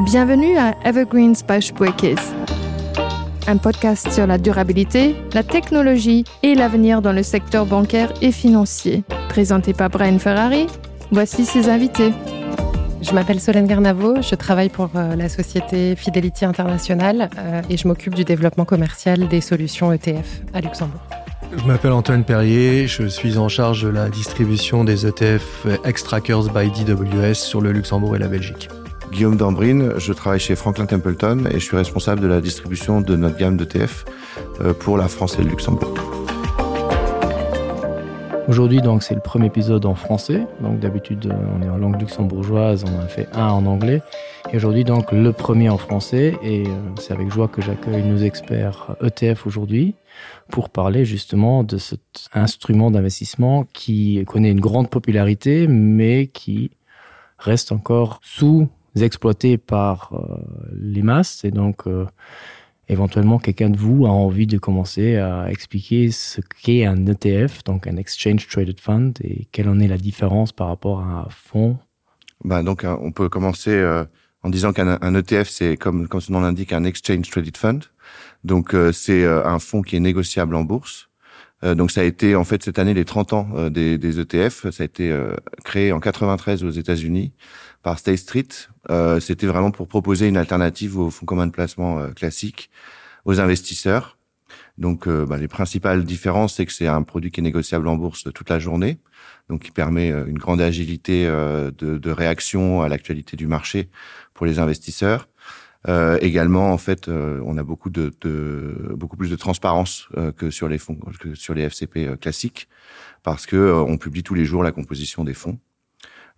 Bienvenue à Evergreens by Spuerkeess. Un podcast sur la durabilité, la technologie et l'avenir dans le secteur bancaire et financier. Présenté par Brian Ferrari, voici ses invités. Je m'appelle Solène Garnavo, je travaille pour euh, la société Fidelity International euh, et je m'occupe du développement commercial des solutions ETF à Luxembourg. Je m'appelle Antoine Perrier, je suis en charge de la distribution des ETF Extrackers by DWS sur le Luxembourg et la Belgique. Guillaume Dambrine, je travaille chez Franklin Templeton et je suis responsable de la distribution de notre gamme d'ETF euh, pour la France et le Luxembourg. Aujourd'hui donc c'est le premier épisode en français donc d'habitude euh, on est en langue luxembourgeoise on a fait un en anglais et aujourd'hui donc le premier en français et euh, c'est avec joie que j'accueille nos experts ETF aujourd'hui pour parler justement de cet instrument d'investissement qui connaît une grande popularité mais qui reste encore sous exploité par euh, les masses et donc euh, éventuellement quelqu'un de vous a envie de commencer à expliquer ce qu'est un ETF donc un exchange traded fund et quelle en est la différence par rapport à un fonds ben donc euh, on peut commencer euh, en disant qu'un ETF c'est comme comme son nom l'indique un exchange traded fund donc euh, c'est euh, un fonds qui est négociable en bourse euh, donc ça a été en fait cette année les 30 ans euh, des, des ETF ça a été euh, créé en 93 aux États-Unis par State Street euh, c'était vraiment pour proposer une alternative aux fonds communs de placement euh, classiques aux investisseurs donc euh, bah, les principales différences c'est que c'est un produit qui est négociable en bourse toute la journée donc qui permet euh, une grande agilité euh, de, de réaction à l'actualité du marché pour les investisseurs euh, également en fait euh, on a beaucoup de, de beaucoup plus de transparence euh, que sur les fonds que sur les FCP euh, classiques parce que euh, on publie tous les jours la composition des fonds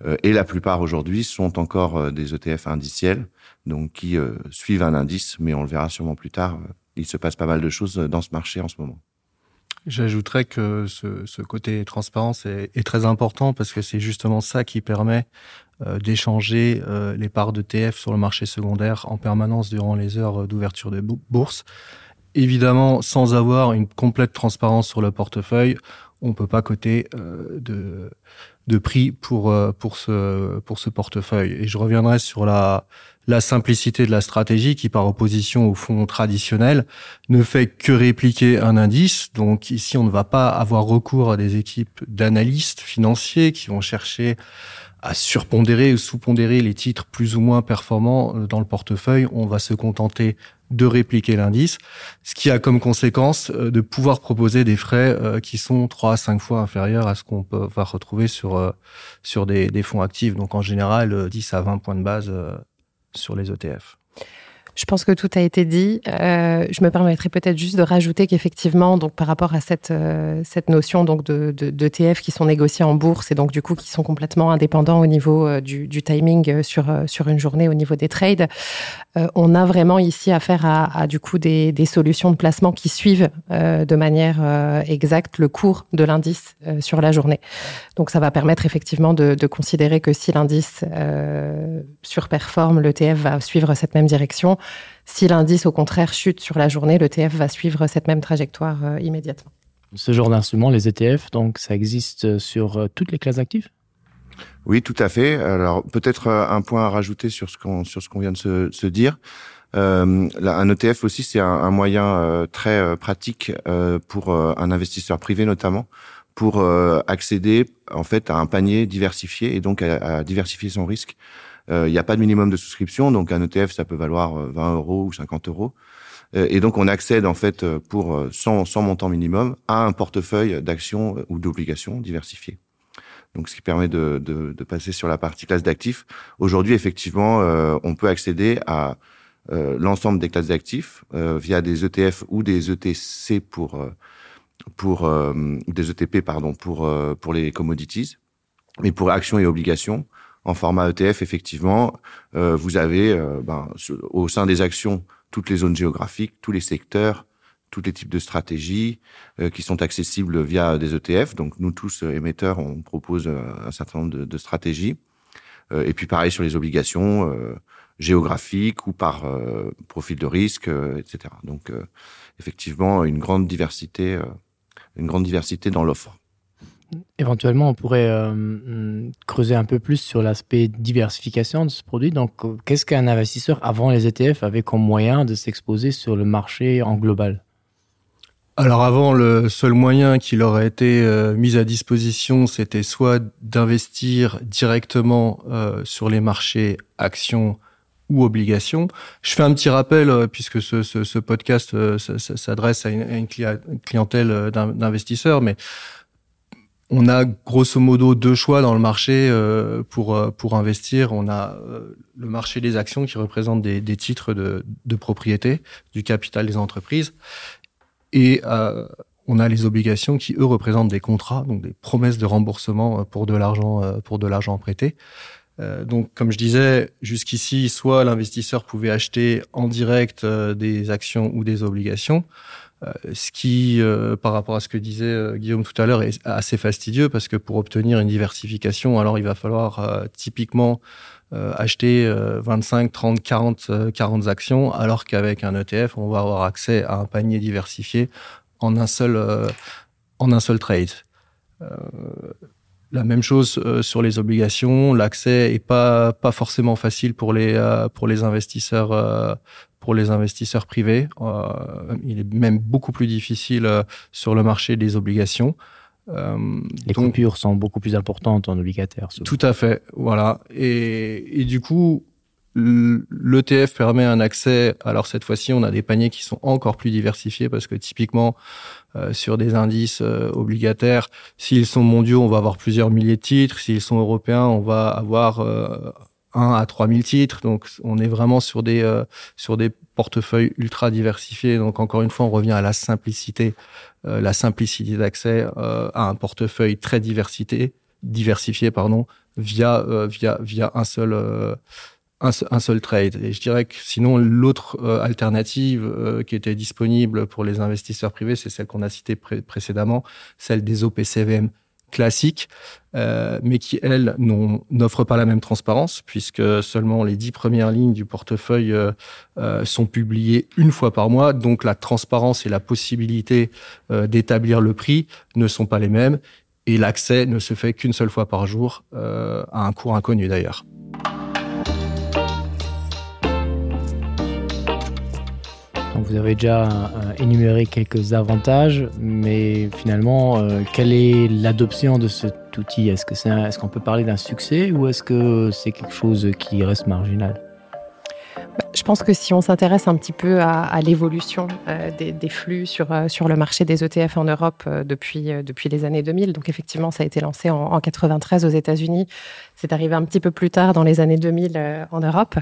euh, et la plupart aujourd'hui sont encore euh, des ETF indiciels donc qui euh, suivent un indice mais on le verra sûrement plus tard euh, il se passe pas mal de choses euh, dans ce marché en ce moment. J'ajouterais que ce, ce côté transparence est, est très important parce que c'est justement ça qui permet euh, d'échanger euh, les parts de TF sur le marché secondaire en permanence durant les heures d'ouverture de bourse. Évidemment, sans avoir une complète transparence sur le portefeuille, on ne peut pas coter euh, de, de prix pour, euh, pour, ce, pour ce portefeuille. Et je reviendrai sur la, la simplicité de la stratégie qui, par opposition au fonds traditionnel, ne fait que répliquer un indice. Donc ici, on ne va pas avoir recours à des équipes d'analystes financiers qui vont chercher à surpondérer ou sous-pondérer les titres plus ou moins performants euh, dans le portefeuille. On va se contenter de répliquer l'indice, ce qui a comme conséquence euh, de pouvoir proposer des frais euh, qui sont trois à cinq fois inférieurs à ce qu'on peut va retrouver sur, sur des, des fonds actifs. Donc en général, 10 à 20 points de base sur les ETF. Je pense que tout a été dit. Euh, je me permettrai peut-être juste de rajouter qu'effectivement, donc par rapport à cette, euh, cette notion donc de, de, d'ETF qui sont négociés en bourse et donc du coup qui sont complètement indépendants au niveau euh, du, du timing euh, sur, euh, sur une journée au niveau des trades, euh, on a vraiment ici affaire à, à du coup des, des solutions de placement qui suivent euh, de manière euh, exacte le cours de l'indice euh, sur la journée. Donc ça va permettre effectivement de, de considérer que si l'indice euh, surperforme, l'ETF va suivre cette même direction. Si l'indice au contraire chute sur la journée, l'ETF va suivre cette même trajectoire euh, immédiatement. Ce genre d'instrument, les ETF, donc ça existe sur euh, toutes les classes actives Oui, tout à fait. Alors peut-être euh, un point à rajouter sur ce qu'on sur ce qu'on vient de se, se dire. Euh, là, un ETF aussi, c'est un, un moyen euh, très euh, pratique euh, pour euh, un investisseur privé notamment pour euh, accéder en fait à un panier diversifié et donc à, à diversifier son risque. Euh, il n'y a pas de minimum de souscription, donc un ETF ça peut valoir 20 euh, euros ou 50 euros. Euh, et donc on accède en fait euh, pour 100, 100 montants minimum à un portefeuille d'actions ou d'obligations diversifiées. Donc ce qui permet de, de, de passer sur la partie classe d'actifs. Aujourd'hui effectivement euh, on peut accéder à euh, l'ensemble des classes d'actifs euh, via des ETF ou des ETC pour, euh, pour euh, des ETP pardon pour, euh, pour les commodities, mais pour actions et obligations en format ETF effectivement euh, vous avez euh, ben, au sein des actions toutes les zones géographiques, tous les secteurs, tous les types de stratégies euh, qui sont accessibles via des ETF. Donc nous tous euh, émetteurs, on propose euh, un certain nombre de, de stratégies. Euh, et puis pareil sur les obligations euh, géographiques ou par euh, profil de risque, euh, etc. Donc euh, effectivement une grande diversité, euh, une grande diversité dans l'offre. Éventuellement, on pourrait euh, creuser un peu plus sur l'aspect diversification de ce produit. Donc, qu'est-ce qu'un investisseur avant les ETF avait comme moyen de s'exposer sur le marché en global? Alors avant, le seul moyen qui leur a été euh, mis à disposition, c'était soit d'investir directement euh, sur les marchés actions ou obligations. Je fais un petit rappel euh, puisque ce, ce, ce podcast euh, s'adresse à une, à une clientèle euh, d'investisseurs, mais on a grosso modo deux choix dans le marché euh, pour, euh, pour investir. On a euh, le marché des actions qui représente des, des titres de, de propriété du capital des entreprises et euh, on a les obligations qui eux représentent des contrats, donc des promesses de remboursement euh, pour de l'argent euh, pour de l'argent prêté. Euh, donc comme je disais jusqu'ici, soit l'investisseur pouvait acheter en direct euh, des actions ou des obligations, euh, ce qui euh, par rapport à ce que disait euh, Guillaume tout à l'heure est assez fastidieux parce que pour obtenir une diversification, alors il va falloir euh, typiquement euh, acheter euh, 25, 30, 40, 40 actions, alors qu'avec un ETF, on va avoir accès à un panier diversifié en un seul, euh, en un seul trade. Euh, la même chose euh, sur les obligations, l'accès est pas, pas forcément facile pour les, euh, pour les investisseurs euh, pour les investisseurs privés. Euh, il est même beaucoup plus difficile euh, sur le marché des obligations. Euh, les donc, coupures sont beaucoup plus importantes en obligataire. Souvent. Tout à fait, voilà. Et, et du coup, l'ETF permet un accès. Alors cette fois-ci, on a des paniers qui sont encore plus diversifiés parce que typiquement, euh, sur des indices euh, obligataires, s'ils sont mondiaux, on va avoir plusieurs milliers de titres. S'ils sont européens, on va avoir euh, 1 à 3000 titres. Donc on est vraiment sur des, euh, sur des portefeuilles ultra diversifiés. Donc encore une fois, on revient à la simplicité, euh, la simplicité d'accès euh, à un portefeuille très diversité, diversifié pardon, via, euh, via, via un seul. Euh, un, un seul trade. Et je dirais que sinon, l'autre euh, alternative euh, qui était disponible pour les investisseurs privés, c'est celle qu'on a citée pré précédemment, celle des OPCVM classiques, euh, mais qui, elles, n'offrent pas la même transparence, puisque seulement les dix premières lignes du portefeuille euh, euh, sont publiées une fois par mois. Donc la transparence et la possibilité euh, d'établir le prix ne sont pas les mêmes, et l'accès ne se fait qu'une seule fois par jour, euh, à un cours inconnu d'ailleurs. Donc vous avez déjà euh, énuméré quelques avantages, mais finalement, euh, quelle est l'adoption de cet outil Est-ce que c'est est-ce qu'on peut parler d'un succès ou est-ce que c'est quelque chose qui reste marginal Je pense que si on s'intéresse un petit peu à, à l'évolution euh, des, des flux sur, euh, sur le marché des ETF en Europe euh, depuis, euh, depuis les années 2000, donc effectivement ça a été lancé en, en 93 aux États-Unis, c'est arrivé un petit peu plus tard dans les années 2000 euh, en Europe.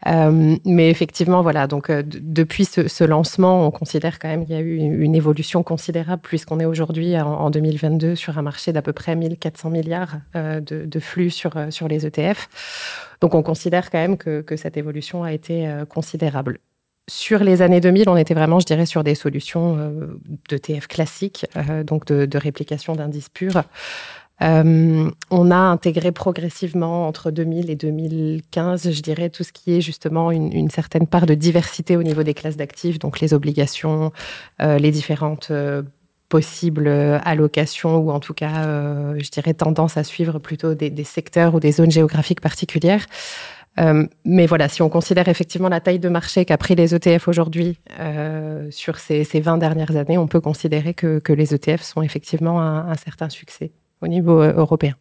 Euh, mais effectivement, voilà, donc euh, depuis ce, ce lancement, on considère quand même qu'il y a eu une, une évolution considérable puisqu'on est aujourd'hui en, en 2022 sur un marché d'à peu près 1400 milliards euh, de, de flux sur, euh, sur les ETF. Donc on considère quand même que, que cette évolution a été euh, considérable. Sur les années 2000, on était vraiment, je dirais, sur des solutions euh, d'ETF classiques, euh, donc de, de réplication d'indices purs. Euh, on a intégré progressivement entre 2000 et 2015, je dirais, tout ce qui est justement une, une certaine part de diversité au niveau des classes d'actifs, donc les obligations, euh, les différentes euh, possibles euh, allocations ou en tout cas, euh, je dirais, tendance à suivre plutôt des, des secteurs ou des zones géographiques particulières. Euh, mais voilà, si on considère effectivement la taille de marché qu'a pris les ETF aujourd'hui euh, sur ces, ces 20 dernières années, on peut considérer que, que les ETF sont effectivement un, un certain succès au niveau euh, européen.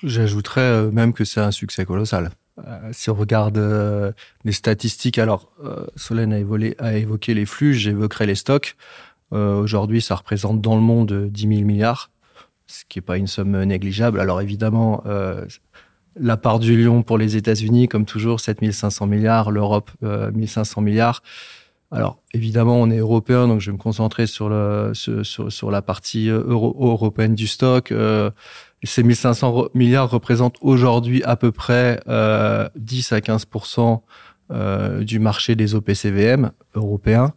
J'ajouterais euh, même que c'est un succès colossal. Euh, si on regarde euh, les statistiques, alors euh, Solène a, évolé, a évoqué les flux, j'évoquerai les stocks. Euh, Aujourd'hui, ça représente dans le monde 10 000 milliards, ce qui n'est pas une somme négligeable. Alors évidemment, euh, la part du lion pour les États-Unis, comme toujours, 7 500 milliards, l'Europe, euh, 1 500 milliards. Alors évidemment, on est européen, donc je vais me concentrer sur, le, sur, sur, sur la partie euh, euro européenne du stock. Euh, ces 1500 milliards représentent aujourd'hui à peu près euh, 10 à 15 euh, du marché des OPCVM européens.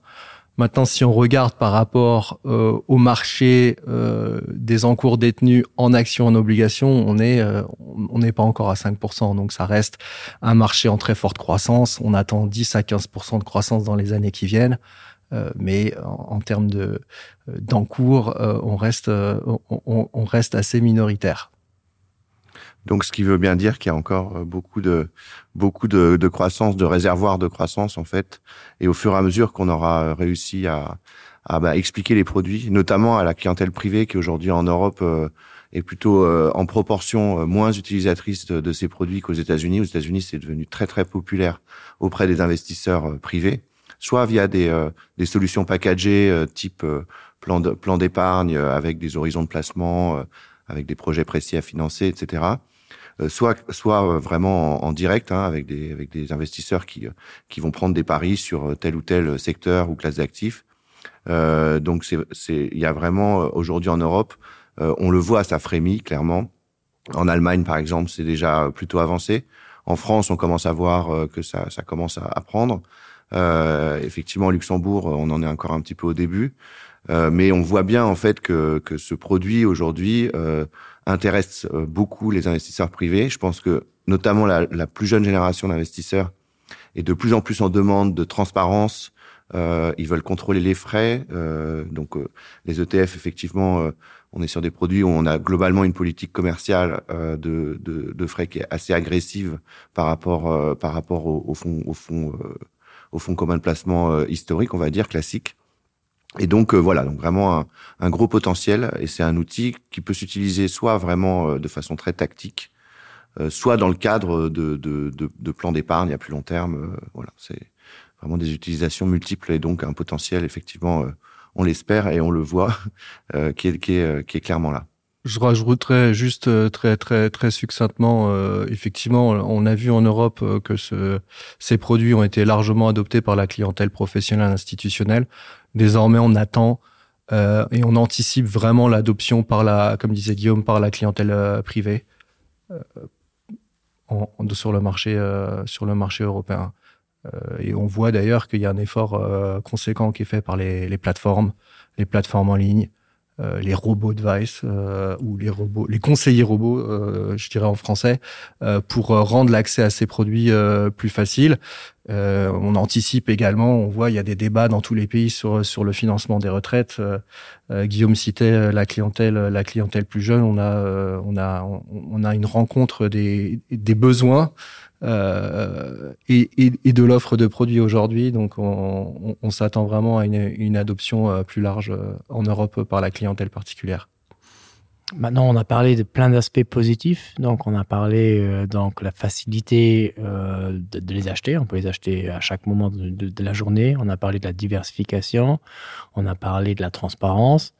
Maintenant, si on regarde par rapport euh, au marché euh, des encours détenus en actions en obligation, on est euh, on n'est pas encore à 5%. Donc ça reste un marché en très forte croissance. On attend 10 à 15% de croissance dans les années qui viennent. Mais en, en termes de d'encours, on reste, on, on, on reste assez minoritaire. Donc ce qui veut bien dire qu'il y a encore beaucoup de beaucoup de, de croissance, de réservoirs de croissance en fait et au fur et à mesure qu'on aura réussi à, à bah, expliquer les produits, notamment à la clientèle privée qui aujourd'hui en Europe euh, est plutôt euh, en proportion euh, moins utilisatrice de, de ces produits qu'aux États-Unis. Aux États-Unis, c'est devenu très très populaire auprès des investisseurs euh, privés, soit via des, euh, des solutions packagées euh, type euh, plan de, plan d'épargne euh, avec des horizons de placement, euh, avec des projets précis à financer, etc. Euh, soit soit euh, vraiment en, en direct hein, avec des avec des investisseurs qui euh, qui vont prendre des paris sur tel ou tel secteur ou classe d'actifs euh, donc c'est c'est il y a vraiment aujourd'hui en Europe euh, on le voit ça frémit clairement en Allemagne par exemple c'est déjà plutôt avancé en France on commence à voir euh, que ça ça commence à, à prendre euh, effectivement Luxembourg on en est encore un petit peu au début euh, mais on voit bien en fait que que ce produit aujourd'hui euh, intéresse euh, beaucoup les investisseurs privés. Je pense que notamment la, la plus jeune génération d'investisseurs est de plus en plus en demande de transparence. Euh, ils veulent contrôler les frais. Euh, donc euh, les ETF, effectivement, euh, on est sur des produits où on a globalement une politique commerciale euh, de, de, de frais qui est assez agressive par rapport, euh, par rapport au, au fonds au fond, euh, au fond commun de placement euh, historique, on va dire classique. Et donc euh, voilà, donc vraiment un, un gros potentiel et c'est un outil qui peut s'utiliser soit vraiment euh, de façon très tactique, euh, soit dans le cadre de, de, de, de plans d'épargne à plus long terme. Euh, voilà, c'est vraiment des utilisations multiples et donc un potentiel effectivement, euh, on l'espère et on le voit, euh, qui, est, qui, est, euh, qui est clairement là. Je rajouterais juste euh, très très très succinctement euh, effectivement on a vu en Europe euh, que ce, ces produits ont été largement adoptés par la clientèle professionnelle institutionnelle. Désormais on attend euh, et on anticipe vraiment l'adoption par la comme disait Guillaume par la clientèle euh, privée euh, en, en, sur le marché euh, sur le marché européen. Euh, et on voit d'ailleurs qu'il y a un effort euh, conséquent qui est fait par les, les plateformes, les plateformes en ligne, euh, les robots device euh, ou les robots les conseillers robots euh, je dirais en français euh, pour euh, rendre l'accès à ces produits euh, plus facile euh, on anticipe également on voit il y a des débats dans tous les pays sur sur le financement des retraites euh, euh, Guillaume citait euh, la clientèle la clientèle plus jeune on a euh, on a on, on a une rencontre des des besoins euh, et, et, et de l'offre de produits aujourd'hui donc on, on, on s'attend vraiment à une, une adoption euh, plus large euh, en Europe par la clientèle particulière. Maintenant, on a parlé de plein d'aspects positifs. Donc, on a parlé euh, donc la facilité euh, de, de les acheter. On peut les acheter à chaque moment de, de, de la journée. On a parlé de la diversification. On a parlé de la transparence.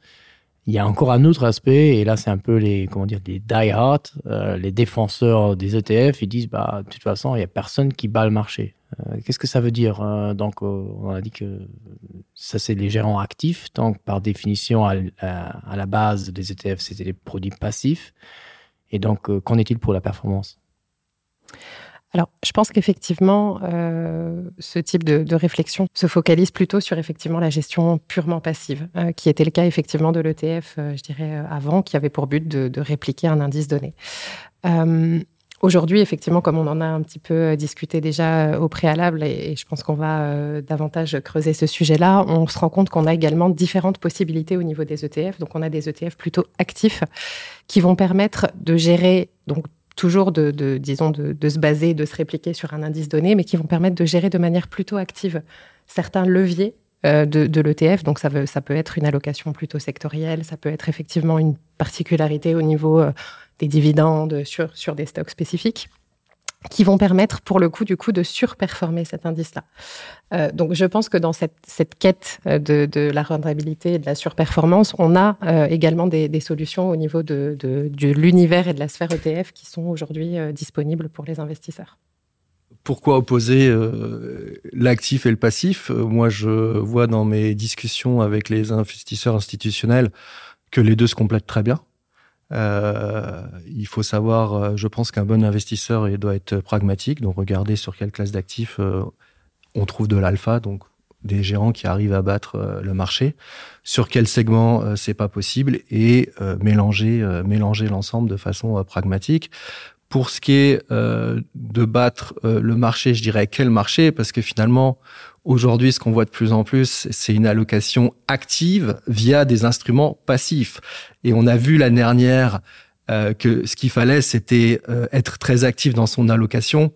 Il y a encore un autre aspect, et là, c'est un peu les, comment dire, les die-hard, euh, les défenseurs des ETF. Ils disent, bah, de toute façon, il n'y a personne qui bat le marché. Euh, Qu'est-ce que ça veut dire euh, Donc, euh, on a dit que ça, c'est les gérants actifs. Donc, par définition, à, à, à la base des ETF, c'était les produits passifs. Et donc, euh, qu'en est-il pour la performance Alors, je pense qu'effectivement, euh, ce type de, de réflexion se focalise plutôt sur effectivement la gestion purement passive, euh, qui était le cas effectivement de l'ETF, euh, je dirais, euh, avant, qui avait pour but de, de répliquer un indice donné. Euh, Aujourd'hui, effectivement, comme on en a un petit peu euh, discuté déjà euh, au préalable, et, et je pense qu'on va euh, davantage creuser ce sujet-là, on se rend compte qu'on a également différentes possibilités au niveau des ETF. Donc, on a des ETF plutôt actifs qui vont permettre de gérer donc, toujours de, de disons de, de se baser, de se répliquer sur un indice donné, mais qui vont permettre de gérer de manière plutôt active certains leviers euh, de, de l'ETF. Donc ça, veut, ça peut être une allocation plutôt sectorielle, ça peut être effectivement une particularité au niveau euh, des dividendes sur, sur des stocks spécifiques qui vont permettre pour le coup du coup de surperformer cet indice là. Euh, donc je pense que dans cette, cette quête euh, de, de la rentabilité et de la surperformance, on a euh, également des, des solutions au niveau de, de, de l'univers et de la sphère ETF qui sont aujourd'hui euh, disponibles pour les investisseurs. Pourquoi opposer euh, l'actif et le passif Moi, je vois dans mes discussions avec les investisseurs institutionnels que les deux se complètent très bien. Euh, il faut savoir, euh, je pense qu'un bon investisseur il doit être pragmatique, donc regarder sur quelle classe d'actifs euh, on trouve de l'alpha, donc des gérants qui arrivent à battre euh, le marché, sur quel segment euh, c'est pas possible et euh, mélanger, euh, mélanger l'ensemble de façon euh, pragmatique. Pour ce qui est euh, de battre euh, le marché, je dirais quel marché, parce que finalement, Aujourd'hui, ce qu'on voit de plus en plus, c'est une allocation active via des instruments passifs. Et on a vu l'année dernière euh, que ce qu'il fallait, c'était euh, être très actif dans son allocation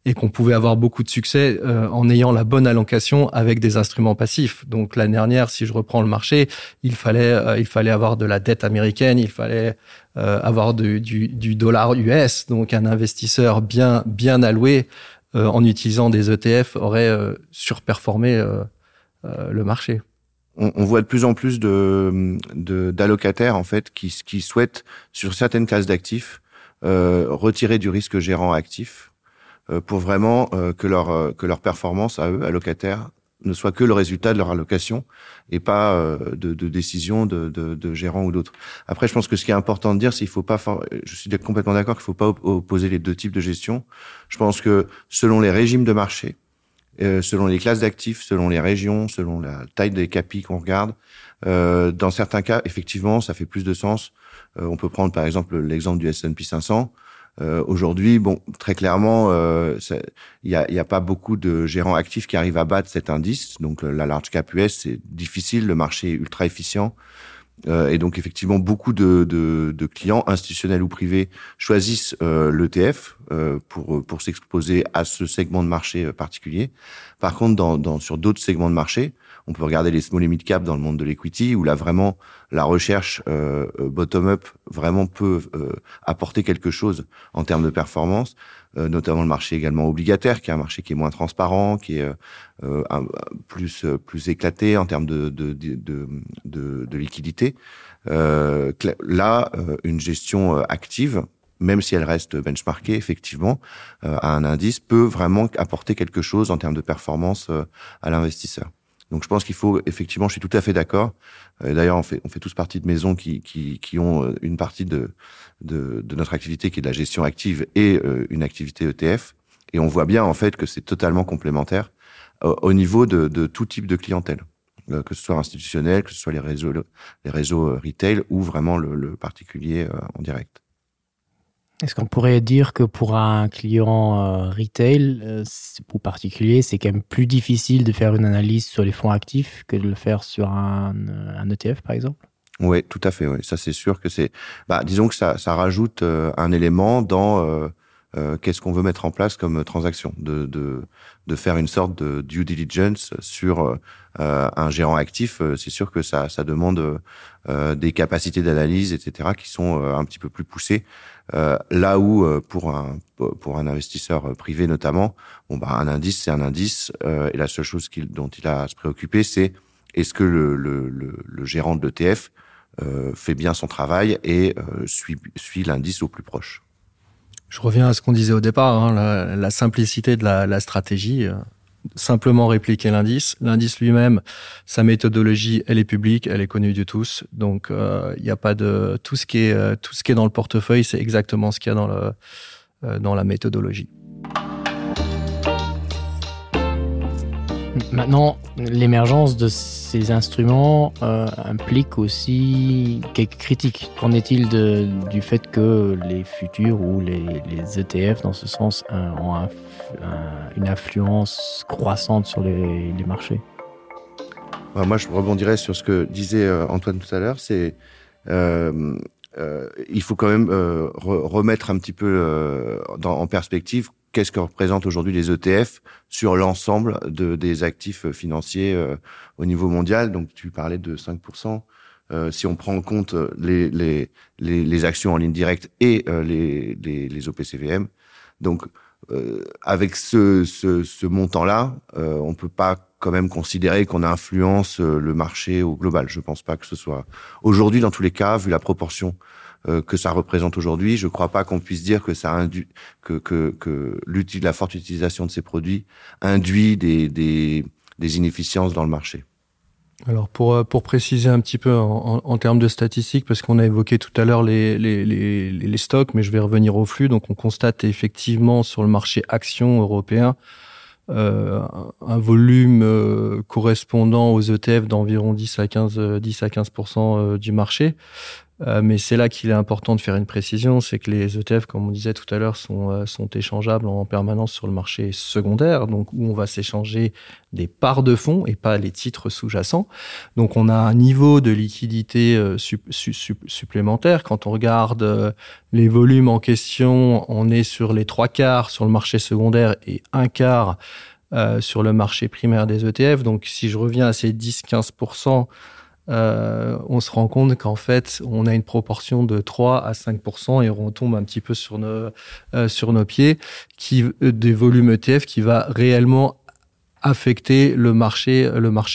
et qu'on pouvait avoir beaucoup de succès euh, en ayant la bonne allocation avec des instruments passifs. Donc l'année dernière, si je reprends le marché, il fallait, euh, il fallait avoir de la dette américaine, il fallait euh, avoir du, du, du dollar US. Donc un investisseur bien, bien alloué euh, en utilisant des ETF aurait euh, surperformé euh, euh, le marché. On, on voit de plus en plus de, de, d'allocataires en fait qui, qui souhaitent sur certaines classes d'actifs euh, retirer du risque gérant actif euh, pour vraiment euh, que leur euh, que leur performance à eux allocataires ne soit que le résultat de leur allocation et pas euh, de, de décision de, de, de gérants ou d'autres. Après je pense que ce qui est important de dire c'est il faut pas je suis complètement d'accord qu'il faut pas opposer les deux types de gestion. Je pense que selon les régimes de marché, euh, selon les classes d'actifs, selon les régions, selon la taille des capis qu'on regarde, euh, dans certains cas effectivement ça fait plus de sens. Euh, on peut prendre par exemple l'exemple du S&P 500. Euh, aujourd'hui bon très clairement euh, il euh, n'y a, a pas beaucoup de gérants actifs qui arrivent à battre cet indice donc euh, la large cap US c'est difficile le marché est ultra efficient euh, et donc effectivement beaucoup de, de, de clients institutionnels ou privés choisissent euh, l'ETF euh, pour, pour s'exposer à ce segment de marché euh, particulier par contre dans, dans sur d'autres segments de marché on peut regarder les small et mid cap dans le monde de l'equity où là vraiment la recherche euh, euh bottom up vraiment peut euh, apporter quelque chose en termes de performance euh, notamment le marché également obligataire qui est un marché qui est moins transparent qui est euh, euh un, plus euh, plus éclaté en termes de de, de, de, de, de liquidité euh, là euh, une gestion active même si elle reste benchmarkée effectivement euh, à un indice peut vraiment apporter quelque chose en termes de performance euh, à l'investisseur Donc je pense qu'il faut effectivement je suis tout à fait d'accord d'ailleurs on fait on fait tous partie de maisons qui, qui, qui ont euh, une partie de, de, de notre activité qui est de la gestion active et euh, une activité ETF et on voit bien en fait que c'est totalement complémentaire euh, au niveau de, de tout type de clientèle euh, que ce soit institutionnel que ce soit les réseaux les réseaux euh, retail ou vraiment le, le particulier euh, en direct. Est-ce qu'on pourrait dire que pour un client euh, retail euh, ou particulier, c'est quand même plus difficile de faire une analyse sur les fonds actifs que de le faire sur un, euh, un ETF par exemple? Oui, tout à fait. Oui. Ça c'est sûr que c'est bah, disons que ça, ça rajoute euh, un élément dans euh, euh, qu'est-ce qu'on veut mettre en place comme transaction de, de, de faire une sorte de due diligence sur euh, un gérant actif euh, c'est sûr que ça, ça demande euh, des capacités d'analyse etc qui sont euh, un petit peu plus poussées euh, là où euh, pour un pour un investisseur privé notamment bon bah un indice c'est un indice euh, et la seule chose qu'il dont il a à se préoccuper c'est est-ce que le, le, le, le gérant de l'ETF euh, fait bien son travail et euh, suit suit l'indice au plus proche. Je reviens à ce qu'on disait au départ, hein, la, la simplicité de la, la stratégie euh, simplement répliquer l'indice l'indice lui-même sa méthodologie elle est publique elle est connue de tous donc il euh, n'y a pas de tout ce qui est euh, tout ce qui est dans le portefeuille c'est exactement ce qu'il y a dans le euh, dans la méthodologie Maintenant, l'émergence de ces instruments euh, implique aussi quelques critiques. Qu'en est-il du fait que les futurs ou les, les ETF dans ce sens euh, ont un, un, une influence croissante sur les, les marchés bah, Moi, je rebondirais sur ce que disait euh, Antoine tout à l'heure, c'est euh, euh, il faut quand même euh, re remettre un petit peu euh, dans, en perspective qu'est-ce que représentent aujourd'hui les ETF sur l'ensemble de, des actifs financiers euh, au niveau mondial. Donc tu parlais de 5%. Euh, si on prend en compte les, les, les, les actions en ligne directe et euh, les, les, les OPCVM. Donc euh, avec ce, ce, ce montant-là, euh, on ne peut pas quand même considérer qu'on influence euh, le marché au global. Je ne pense pas que ce soit aujourd'hui dans tous les cas, vu la proportion euh, que ça représente aujourd'hui, je ne crois pas qu'on puisse dire que ça induit que, que, que la forte utilisation de ces produits induit des, des, des inefficiences dans le marché. Alors pour, euh, pour préciser un petit peu en, en, en termes de statistiques, parce qu'on a évoqué tout à l'heure les, les, les, les stocks, mais je vais revenir au flux. Donc on constate effectivement sur le marché action européen euh, un volume euh, correspondant aux ETF d'environ 10 à 15, 10 à 15 euh, du marché. Mais c'est là qu'il est important de faire une précision, c'est que les ETF, comme on disait tout à l'heure, sont, sont échangeables en permanence sur le marché secondaire, donc où on va s'échanger des parts de fonds et pas les titres sous-jacents. Donc on a un niveau de liquidité sup sup supplémentaire. Quand on regarde les volumes en question, on est sur les 3 quarts sur le marché secondaire et un quart sur le marché primaire des ETF. Donc si je reviens à ces 10-15 on se rend compte qu'en fait on a une proportion de 3 à 5 et on retombe un petit peu sur nos pieds qui des volumes ETF qui va réellement affecter le marché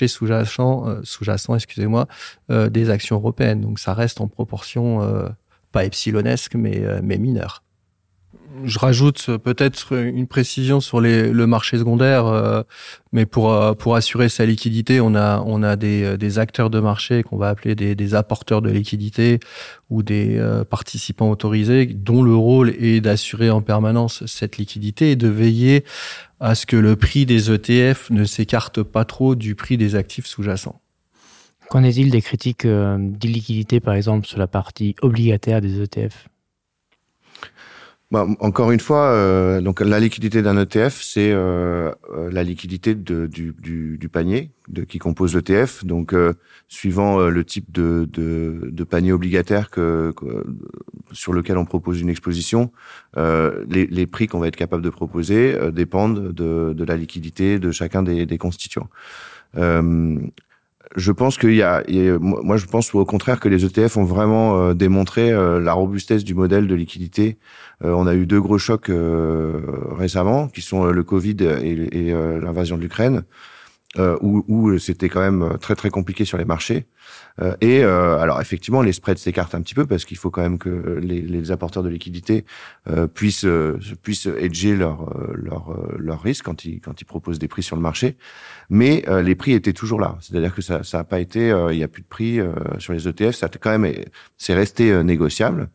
sous-jacent excusez-moi des actions européennes. Donc ça reste en proportion pas epsilonesque mais mineure. Je rajoute peut-être une précision sur le marché secondaire, mais pour assurer sa liquidité, on a des acteurs de marché qu'on va appeler des apporteurs de liquidité ou des participants autorisés dont le rôle est d'assurer en permanence cette liquidité et de veiller à ce que le prix des ETF ne s'écarte pas trop du prix des actifs sous-jacents. Qu'en est-il des critiques d'illiquidité, par exemple, sur la partie obligataire des ETF? Bah, encore une fois, donc la liquidité d'un ETF, c'est la liquidité du panier qui compose l'ETF. Donc suivant le type de panier obligataire sur lequel on propose une exposition, les prix qu'on va être capable de proposer dépendent de la liquidité de chacun des constituants. Je pense qu'il y a, moi je pense au contraire que les ETF ont vraiment démontré la robustesse du modèle de liquidité. On a eu deux gros chocs récemment qui sont le Covid et l'invasion de l'Ukraine, où c'était quand même très très compliqué sur les marchés. Et alors effectivement les spreads s'écartent un petit peu parce qu'il faut quand même que les apporteurs de liquidité puissent hedger leur risque quand ils proposent des prix sur le marché. Mais les prix étaient toujours là, c'est-à-dire que ça a pas été, il n'y a plus de prix sur les ETF, ça a quand même, c'est resté négociable.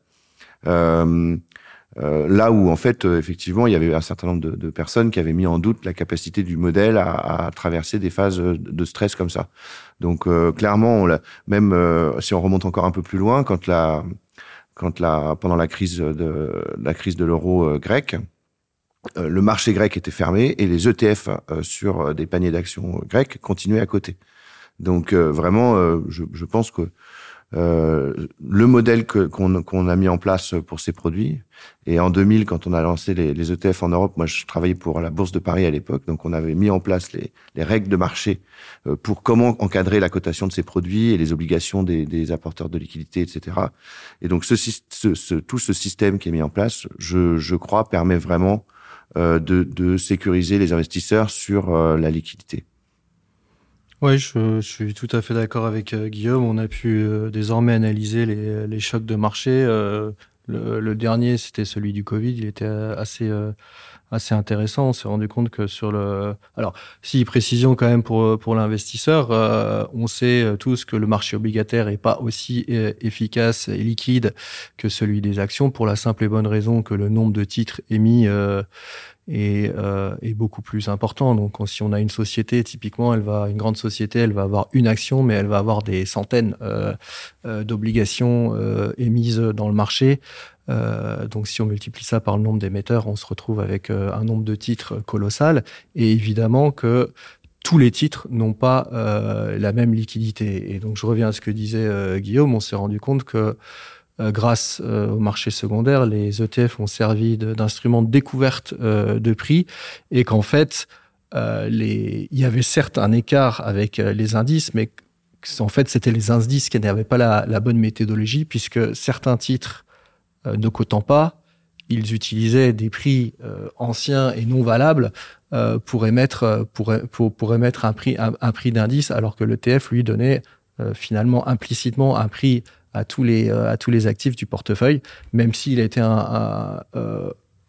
Là où en fait effectivement il y avait un certain nombre de personnes qui avaient mis en doute la capacité du modèle à traverser des phases de stress comme ça. Donc clairement on même si on remonte encore un peu plus loin, quand la pendant la crise de l'euro grec, le marché grec était fermé et les ETF sur des paniers d'actions grecs continuaient à coter. Donc vraiment je pense que le modèle qu'on qu a mis en place pour ces produits, et en 2000 quand on a lancé les ETF en Europe, moi je travaillais pour la Bourse de Paris à l'époque, donc on avait mis en place les règles de marché pour comment encadrer la cotation de ces produits et les obligations des apporteurs de liquidités, etc. Et donc ce tout ce système qui est mis en place, je crois, permet vraiment de sécuriser les investisseurs sur la liquidité. Oui, je suis tout à fait d'accord avec Guillaume. On a pu désormais analyser les chocs de marché. Le dernier, c'était celui du Covid, il était assez intéressant. On s'est rendu compte que sur le, alors si, précision quand même pour l'investisseur, on sait tous que le marché obligataire est pas aussi efficace et liquide que celui des actions pour la simple et bonne raison que le nombre de titres émis est beaucoup plus important. Donc si on a une société, typiquement, elle va une grande société, elle va avoir une action, mais elle va avoir des centaines d'obligations émises dans le marché. Donc si on multiplie ça par le nombre d'émetteurs, on se retrouve avec un nombre de titres colossal et évidemment que tous les titres n'ont pas la même liquidité. Et donc je reviens à ce que disait Guillaume, on s'est rendu compte que grâce au marché secondaire, les ETF ont servi d'instruments de découverte de prix et qu'en fait il y avait certes un écart avec les indices, mais en fait c'était les indices qui n'avaient pas la bonne méthodologie puisque certains titres ne cotant pas, ils utilisaient des prix anciens et non valables pour émettre un prix d'indice alors que l'ETF lui donnait finalement implicitement un prix à tous les actifs du portefeuille, même s'il était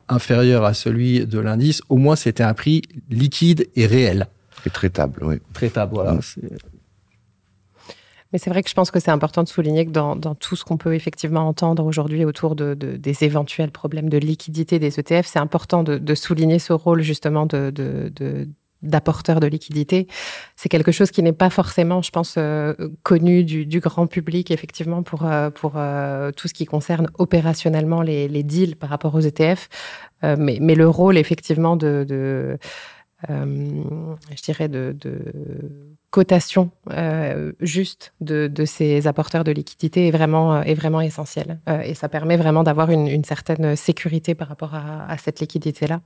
inférieur à celui de l'indice, au moins c'était un prix liquide et réel. Et traitable, oui. Traitable, voilà. Mais c'est vrai que je pense que c'est important de souligner que dans tout ce qu'on peut effectivement entendre aujourd'hui autour des éventuels problèmes de liquidité des ETF, c'est important de souligner ce rôle justement de d'apporteurs de liquidité. C'est quelque chose qui n'est pas forcément, je pense, euh, connu du, du grand public, effectivement, pour, euh, pour euh, tout ce qui concerne opérationnellement les, les deals par rapport aux ETF. Euh, mais, mais le rôle, effectivement, de, de euh, je dirais, de, de cotation euh, juste de, de ces apporteurs de liquidité est vraiment, euh, est vraiment essentiel. Euh, et ça permet vraiment d'avoir une, une certaine sécurité par rapport à, à cette liquidité-là.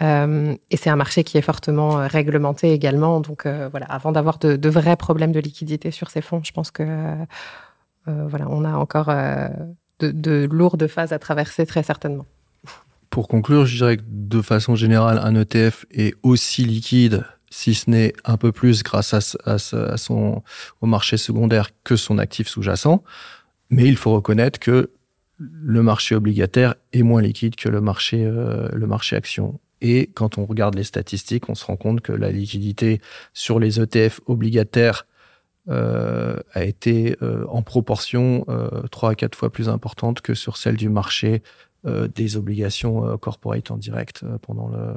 Euh, et c'est un marché qui est fortement euh, réglementé également. Donc euh, voilà, avant d'avoir de, de vrais problèmes de liquidité sur ces fonds, je pense que euh, voilà, on a encore euh, de, de lourdes phases à traverser très certainement. Pour conclure, je dirais que de façon générale, un ETF est aussi liquide, si ce n'est un peu plus grâce à, à, à son, au marché secondaire que son actif sous-jacent. Mais il faut reconnaître que le marché obligataire est moins liquide que le marché, euh, le marché action. Et quand on regarde les statistiques, on se rend compte que la liquidité sur les ETF obligataires euh, a été euh, en proportion euh, 3 à 4 fois plus importante que sur celle du marché euh, des obligations euh, corporate en direct euh, pendant le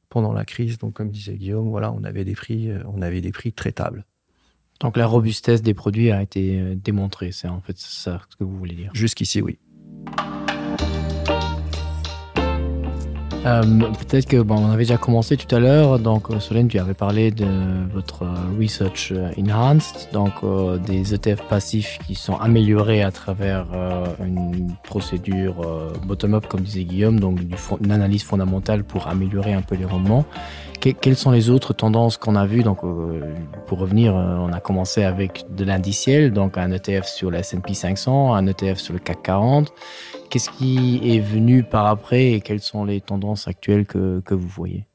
pendant la crise. Donc comme disait Guillaume, voilà, on avait des prix, euh, on avait des prix traitables. Donc la robustesse des produits a été euh, démontrée, c'est en fait ça ce que vous voulez dire. Jusqu'ici, oui. Euh, Peut-être que bon, on avait déjà commencé tout à l'heure, donc euh, Solène, tu avais parlé de votre euh, Research euh, Enhanced, donc euh, des ETF passifs qui sont améliorés à travers euh, une procédure euh, bottom-up, comme disait Guillaume, donc du fond, une analyse fondamentale pour améliorer un peu les rendements. Que, quelles sont les autres tendances qu'on a vues donc euh, pour revenir euh, on a commencé avec de l'indiciel donc un ETF sur la S&P 500 un ETF sur le CAC 40 qu'est-ce qui est venu par après et quelles sont les tendances actuelles que, que vous voyez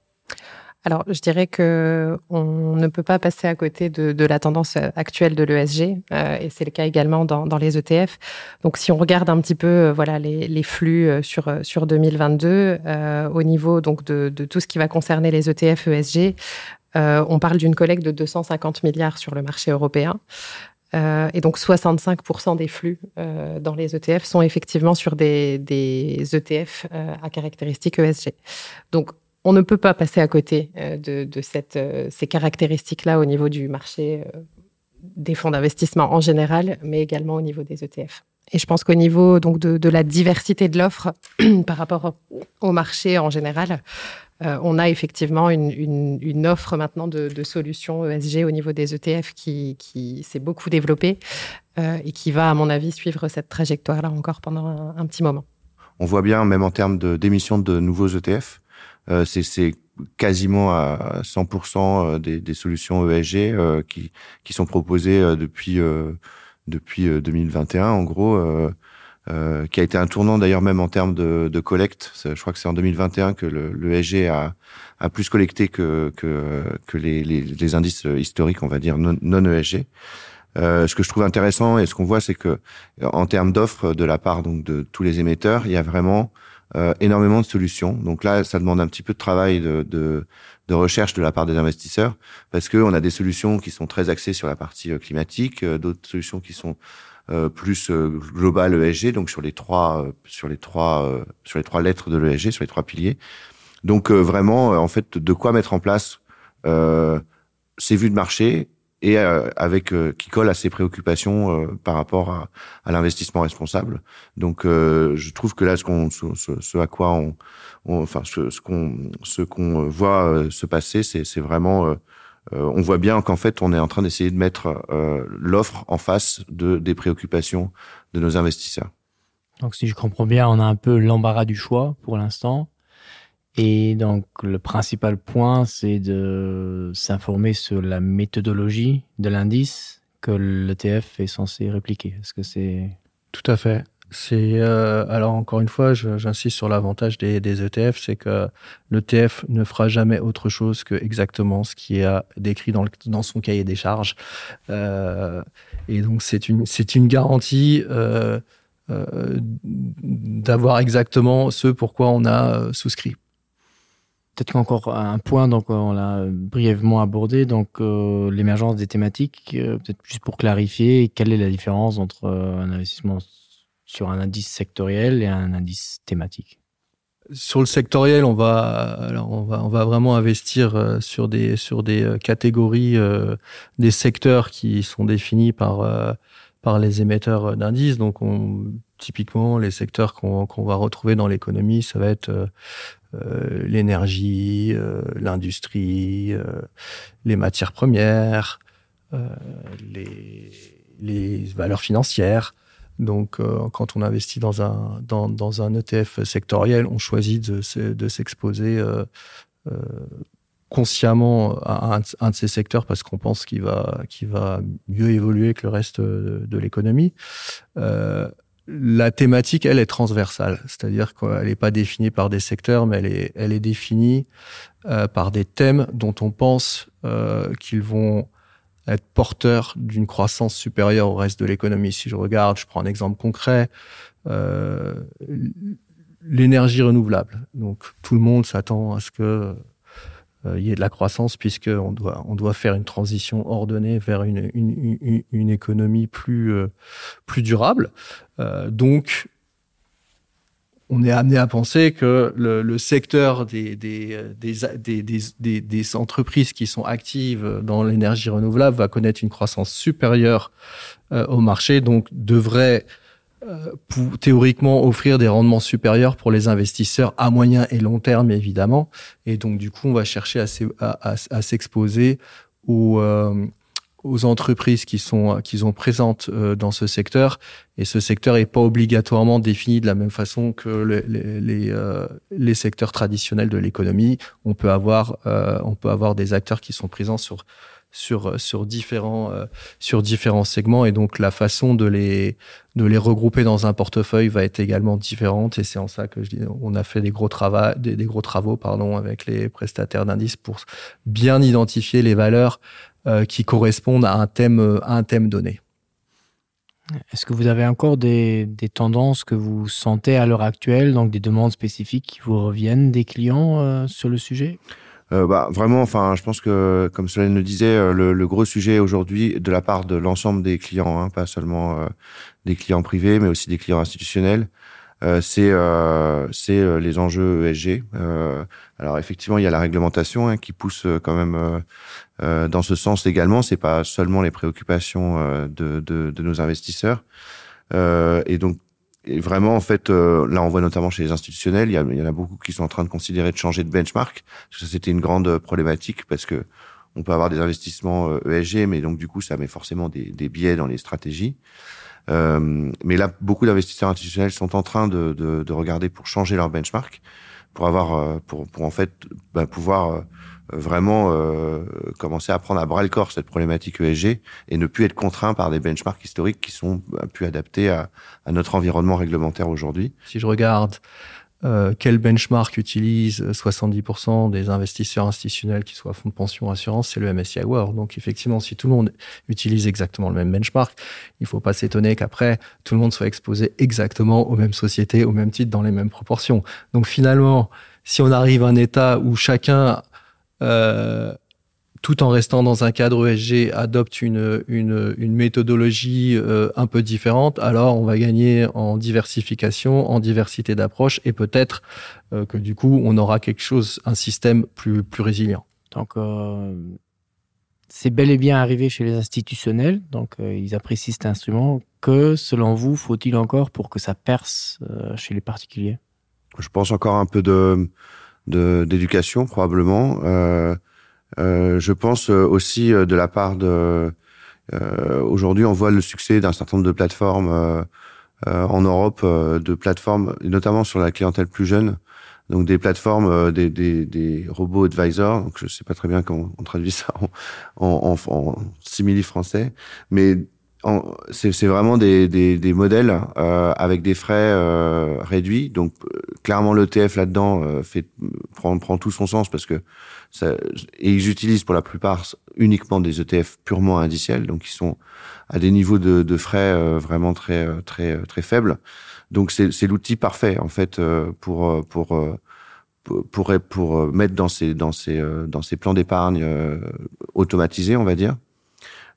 Alors je dirais que on ne peut pas passer à côté de, de la tendance actuelle de l'ESG euh, et c'est le cas également dans, dans les ETF. Donc si on regarde un petit peu euh, voilà les, les flux euh, sur, euh, sur 2022 euh, au niveau donc de, de tout ce qui va concerner les ETF ESG, euh, on parle d'une collecte de 250 milliards sur le marché européen. Euh, et donc 65% des flux euh, dans les ETF sont effectivement sur des, des ETF euh, à caractéristiques ESG. Donc on ne peut pas passer à côté euh, de, de cette, euh, ces caractéristiques-là au niveau du marché euh, des fonds d'investissement en général, mais également au niveau des ETF. Et je pense qu'au niveau donc, de, de la diversité de l'offre par rapport au marché en général, euh, on a effectivement une, une, une offre maintenant de, de solutions ESG au niveau des ETF qui, qui s'est beaucoup développée euh, et qui va, à mon avis, suivre cette trajectoire-là encore pendant un, un petit moment. On voit bien, même en termes d'émissions de, de nouveaux ETF, euh, c'est quasiment à 100% euh, des, des solutions ESG euh, qui, qui sont proposées euh, depuis, euh, depuis 2021, en gros, euh, euh, qui a été un tournant d'ailleurs même en termes de, de collecte. Je crois que c'est en 2021 que l'ESG a, a plus collecté que, que, que les, les, les indices historiques, on va dire, non, non ESG. Euh, ce que je trouve intéressant et ce qu'on voit, c'est que en termes d'offres de la part donc, de tous les émetteurs, il y a vraiment euh, énormément de solutions. Donc là, ça demande un petit peu de travail de, de, de recherche de la part des investisseurs parce qu'on a des solutions qui sont très axées sur la partie euh, climatique, euh, d'autres solutions qui sont euh, plus euh, globales ESG, donc sur les trois, euh, sur les trois, euh, sur les trois lettres de l'ESG, sur les trois piliers. Donc euh, vraiment, euh, en fait, de quoi mettre en place euh, ces vues de marché et euh, avec euh, qui colle à ses préoccupations euh, par rapport à, à l'investissement responsable. Donc euh, je trouve que là ce qu'on ce, ce, ce à quoi on, on enfin ce, ce qu'on ce qu'on voit euh, se passer, c'est vraiment euh, euh, on voit bien qu'en fait on est en train d'essayer de mettre euh, l'offre en face de des préoccupations de nos investisseurs. Donc si je comprends bien, on a un peu l'embarras du choix pour l'instant. Et donc le principal point, c'est de s'informer sur la méthodologie de l'indice que l'ETF est censé répliquer. Est-ce que c'est Tout à fait. C'est euh, alors encore une fois, j'insiste sur l'avantage des, des ETF, c'est que l'ETF ne fera jamais autre chose que exactement ce qui est décrit dans, le, dans son cahier des charges. Euh, et donc c'est une, c'est une garantie euh, euh, d'avoir exactement ce pourquoi on a euh, souscrit. Peut-être encore un point donc on l'a brièvement abordé donc euh, l'émergence des thématiques euh, peut-être juste pour clarifier quelle est la différence entre euh, un investissement sur un indice sectoriel et un indice thématique. Sur le sectoriel, on va, alors on va, on va vraiment investir euh, sur des, sur des euh, catégories euh, des secteurs qui sont définis par, euh, par les émetteurs d'indices. Donc on, typiquement, les secteurs qu'on qu va retrouver dans l'économie, ça va être euh, euh, l'énergie, euh, l'industrie, euh, les matières premières, euh, les, les valeurs financières. Donc euh, quand on investit dans un, dans, dans un ETF sectoriel, on choisit de, de s'exposer euh, euh, consciemment à un, un de ces secteurs parce qu'on pense qu'il va, qu'il va mieux évoluer que le reste de, de l'économie. Euh, la thématique, elle est transversale, c'est-à-dire qu'elle n'est pas définie par des secteurs, mais elle est, elle est définie euh, par des thèmes dont on pense euh, qu'ils vont être porteurs d'une croissance supérieure au reste de l'économie. Si je regarde, je prends un exemple concret, euh, l'énergie renouvelable. Donc tout le monde s'attend à ce que euh, y ait de la croissance puisque on doit, on doit faire une transition ordonnée vers une, une, une, une économie plus, euh, plus durable. Euh, donc, on est amené à penser que le, le secteur des, des, des, des, des, des, des entreprises qui sont actives dans l'énergie renouvelable va connaître une croissance supérieure euh, au marché, donc devrait euh, pour, théoriquement offrir des rendements supérieurs pour les investisseurs à moyen et long terme évidemment. Et donc du coup, on va chercher à s'exposer aux, euh, aux entreprises qui sont qui sont présentes euh, dans ce secteur et ce secteur n'est pas obligatoirement défini de la même façon que les, les, les, euh, les secteurs traditionnels de l'économie on peut avoir euh, on peut avoir des acteurs qui sont présents sur sur sur différents euh, sur différents segments et donc la façon de les de les regrouper dans un portefeuille va être également différente et c'est en ça que je dis on a fait des gros travaux des, des gros travaux pardon avec les prestataires d'indices pour bien identifier les valeurs euh, qui correspondent à un thème euh, à un thème donné. Est-ce que vous avez encore des, des tendances que vous sentez à l'heure actuelle, donc des demandes spécifiques qui vous reviennent des clients euh, sur le sujet euh, bah, Vraiment, enfin, je pense que, comme Solène le disait, euh, le, le gros sujet aujourd'hui de la part de l'ensemble des clients, hein, pas seulement euh, des clients privés, mais aussi des clients institutionnels, euh, c'est euh, euh, les enjeux ESG. Euh, alors effectivement, il y a la réglementation hein, qui pousse euh, quand même euh, euh, dans ce sens également. C'est pas seulement les préoccupations euh, de, de, de nos investisseurs. Euh, et donc et vraiment en fait euh, là on voit notamment chez les institutionnels il y, a, il y en a beaucoup qui sont en train de considérer de changer de benchmark parce que ça c'était une grande problématique parce que on peut avoir des investissements ESG euh, e mais donc du coup ça met forcément des, des biais dans les stratégies euh, mais là beaucoup d'investisseurs institutionnels sont en train de, de, de regarder pour changer leur benchmark pour avoir euh, pour, pour en fait ben, pouvoir euh, vraiment euh, commencer à prendre à bras le corps cette problématique ESG et ne plus être contraint par des benchmarks historiques qui sont ben, plus adaptés à, à notre environnement réglementaire aujourd'hui. Si je regarde euh, quel benchmark utilise 70% des investisseurs institutionnels qui soient fonds de pension assurance, c'est le MSCI World. Donc effectivement, si tout le monde utilise exactement le même benchmark, il faut pas s'étonner qu'après tout le monde soit exposé exactement aux mêmes sociétés, au même titre, dans les mêmes proportions. Donc finalement, si on arrive à un état où chacun euh, tout en restant dans un cadre ESG, adopte une, une, une méthodologie euh, un peu différente, alors on va gagner en diversification, en diversité d'approches et peut-être euh, que du coup on aura quelque chose, un système plus, plus résilient. Donc euh, c'est bel et bien arrivé chez les institutionnels, donc euh, ils apprécient cet instrument. Que selon vous faut-il encore pour que ça perce euh, chez les particuliers Je pense encore un peu de d'éducation probablement. Euh, Euh, je pense euh, aussi euh, de la part de euh, aujourd'hui on voit le succès d'un certain nombre de plateformes euh, euh, en Europe euh, de plateformes notamment sur la clientèle plus jeune donc des plateformes euh, des, des, des robots advisors donc je sais pas très bien comment on traduit ça en, en, en, en simili français mais c'est vraiment des, des, des modèles euh, avec des frais euh, réduits donc euh, clairement l'ETF là dedans euh, fait prend, prend tout son sens parce que ça, et ils utilisent pour la plupart uniquement des ETF purement indiciels donc ils sont à des niveaux de, de frais euh, vraiment très euh, très très faibles donc c'est l'outil parfait en fait euh, pour euh, pour pour pour mettre dans ces dans ces dans ces plans d'épargne automatisés on va dire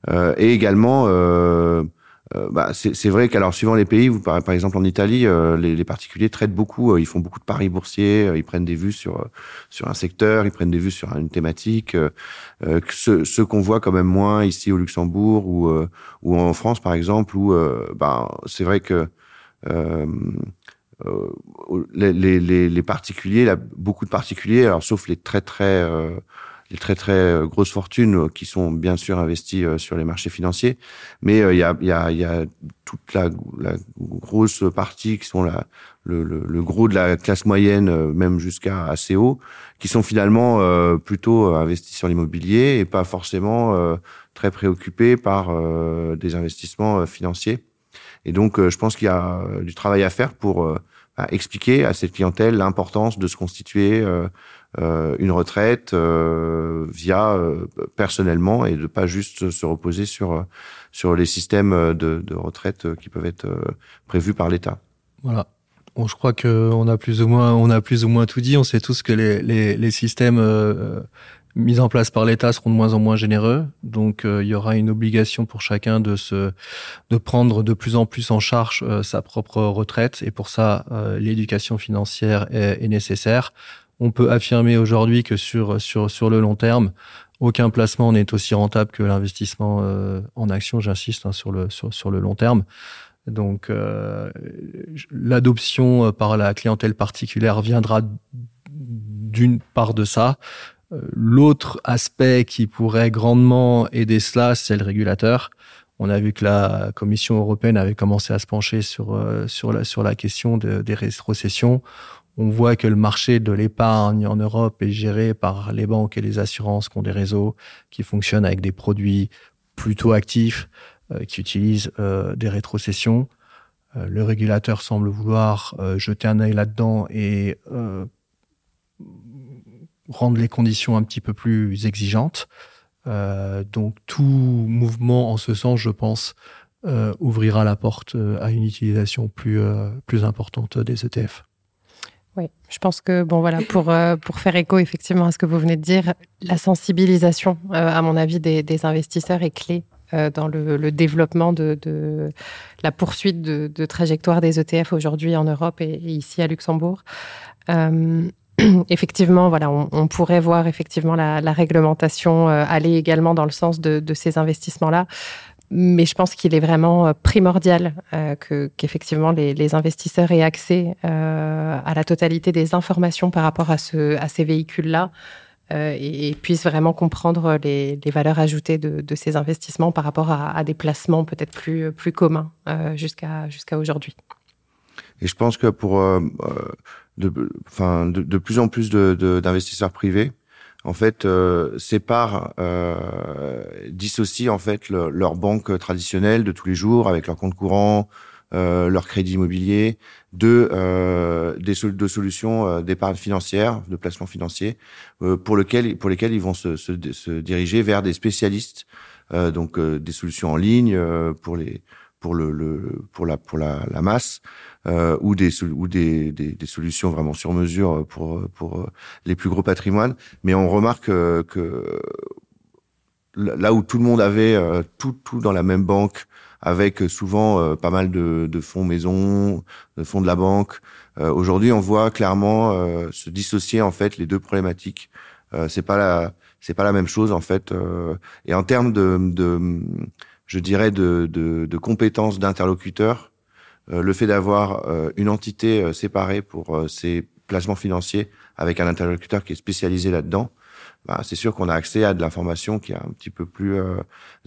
euh, et également euh, Euh, bah, c'est vrai qu'alors suivant les pays, vous par, par exemple en Italie, euh, les, les particuliers traitent beaucoup, euh, ils font beaucoup de paris boursiers, euh, ils prennent des vues sur, euh, sur un secteur, ils prennent des vues sur une thématique, euh, euh, ce, ce qu'on voit quand même moins ici au Luxembourg ou, euh, ou en France par exemple, où euh, bah, c'est vrai que euh, euh, les, les, les, les particuliers, là, beaucoup de particuliers, alors sauf les très très euh, les très très euh, grosses fortunes euh, qui sont bien sûr investies euh, sur les marchés financiers mais il y a, y, a, y a toute la, la grosse partie qui sont la le, le, le gros de la classe moyenne même jusqu'à assez haut qui sont finalement euh, plutôt investis sur l'immobilier et pas forcément euh, très préoccupés par euh, des investissements financiers et donc euh, je pense qu'il y a du travail à faire pour euh, expliquer à cette clientèle l'importance de se constituer euh, euh, une retraite euh, via euh, personnellement et de pas juste se reposer sur euh, sur les systèmes de, de retraite euh, qui peuvent être euh, prévus par l'État. Voilà. Bon, je crois que on a plus ou moins on a plus ou moins tout dit on sait tous que les, les, les systèmes euh, mis en place par l'État seront de moins en moins généreux. Donc euh, il y aura une obligation pour chacun de se de prendre de plus en plus en charge euh, sa propre retraite et pour ça euh, l'éducation financière est, est nécessaire. On peut affirmer aujourd'hui que sur, sur, sur le long terme, aucun placement n'est aussi rentable que l'investissement euh, en action, j'insiste sur le, sur, sur le long terme. Donc euh, l'adoption euh, par la clientèle particulière viendra d'une part de ça. Euh, l'autre aspect qui pourrait grandement aider cela, c'est le régulateur. On a vu que la Commission européenne avait commencé à se pencher sur, euh, sur, la, sur la question de, des rétrocessions. On voit que le marché de l'épargne en Europe est géré par les banques et les assurances qui ont des réseaux qui fonctionnent avec des produits plutôt actifs, euh, qui utilisent euh, des rétrocessions. Euh, le régulateur semble vouloir euh, jeter un œil là-dedans et euh, rendre les conditions un petit peu plus exigeantes. Euh, donc tout mouvement en ce sens, je pense, euh, ouvrira la porte euh, à une utilisation plus, euh, plus importante des ETF. Oui, je pense que bon voilà pour, euh, pour faire écho effectivement à ce que vous venez de dire, la sensibilisation euh, à mon avis des, des investisseurs est clé euh, dans le, le développement de, de la poursuite de, de trajectoire des ETF aujourd'hui en Europe et, et ici à Luxembourg. Euh, effectivement, voilà, on, on pourrait voir effectivement la, la réglementation euh, aller également dans le sens de, de ces investissements-là. Mais je pense qu'il est vraiment euh, primordial euh, que qu'effectivement les, les investisseurs aient accès euh, à la totalité des informations par rapport à, ce, à ces véhicules-là euh, et, et puissent vraiment comprendre les, les valeurs ajoutées de, de ces investissements par rapport à, à des placements peut-être plus, plus communs euh, jusqu'à jusqu'à aujourd'hui. Et je pense que pour euh, euh de, enfin, de, de plus en plus d'investisseurs privés, en fait euh, séparent euh, dissocient en fait le, leur banque traditionnelle de tous les jours avec leur compte courant, euh, leur crédit immobilier, de, euh, des sol de solutions euh, d'épargne financière, de placement financier, euh, pour, lequel, pour lesquels ils vont se, se, se diriger vers des spécialistes, euh, donc euh, des solutions en ligne euh, pour les pour le, le pour la pour la, la masse euh, ou des ou des, des, des solutions vraiment sur mesure pour pour euh, les plus gros patrimoines mais on remarque euh, que là où tout le monde avait euh, tout tout dans la même banque avec souvent euh, pas mal de, de fonds maison de fonds de la banque euh, aujourd'hui on voit clairement euh, se dissocier en fait les deux problématiques euh, c'est pas la c'est pas la même chose en fait euh, et en termes de, de je dirais de, de, de compétences d'interlocuteurs euh, le fait d'avoir euh, une entité euh, séparée pour euh, ses placements financiers avec un interlocuteur qui est spécialisé là dedans bah, c'est sûr qu'on a accès à de l'information qui est un petit peu plus euh,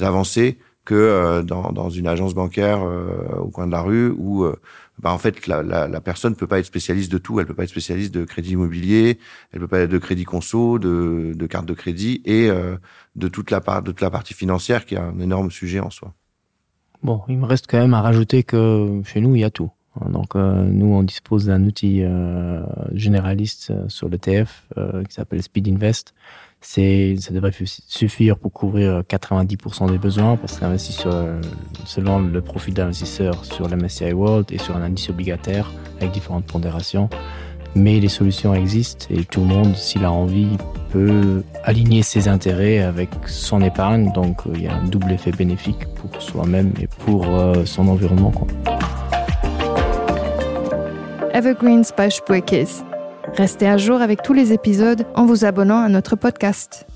avancée que euh, dans, dans une agence bancaire euh, au coin de la rue où euh, bah, en fait la, la, la personne peut pas être spécialiste de tout elle peut pas être spécialiste de crédit immobilier elle peut pas être de crédit conso de, de carte de crédit et euh, de toute la part de toute la partie financière qui est un énorme sujet en soi bon il me reste quand même à rajouter que chez nous il y a tout donc euh, nous on dispose d'un outil euh, généraliste euh, sur l'ETF euh, qui s'appelle speed invest c'est ça devrait suffire pour couvrir 90% des besoins parce qu'investi sur selon le profil d'investisseur sur la MSCI World et sur un indice obligataire avec différentes pondérations mais les solutions existent et tout le monde s'il a envie peut aligner ses intérêts avec son épargne donc euh, il y a un double effet bénéfique pour soi-même et pour euh, son environnement quoi. Evergreens by Spuerkeess. Restez à jour avec tous les épisodes en vous abonnant à notre podcast.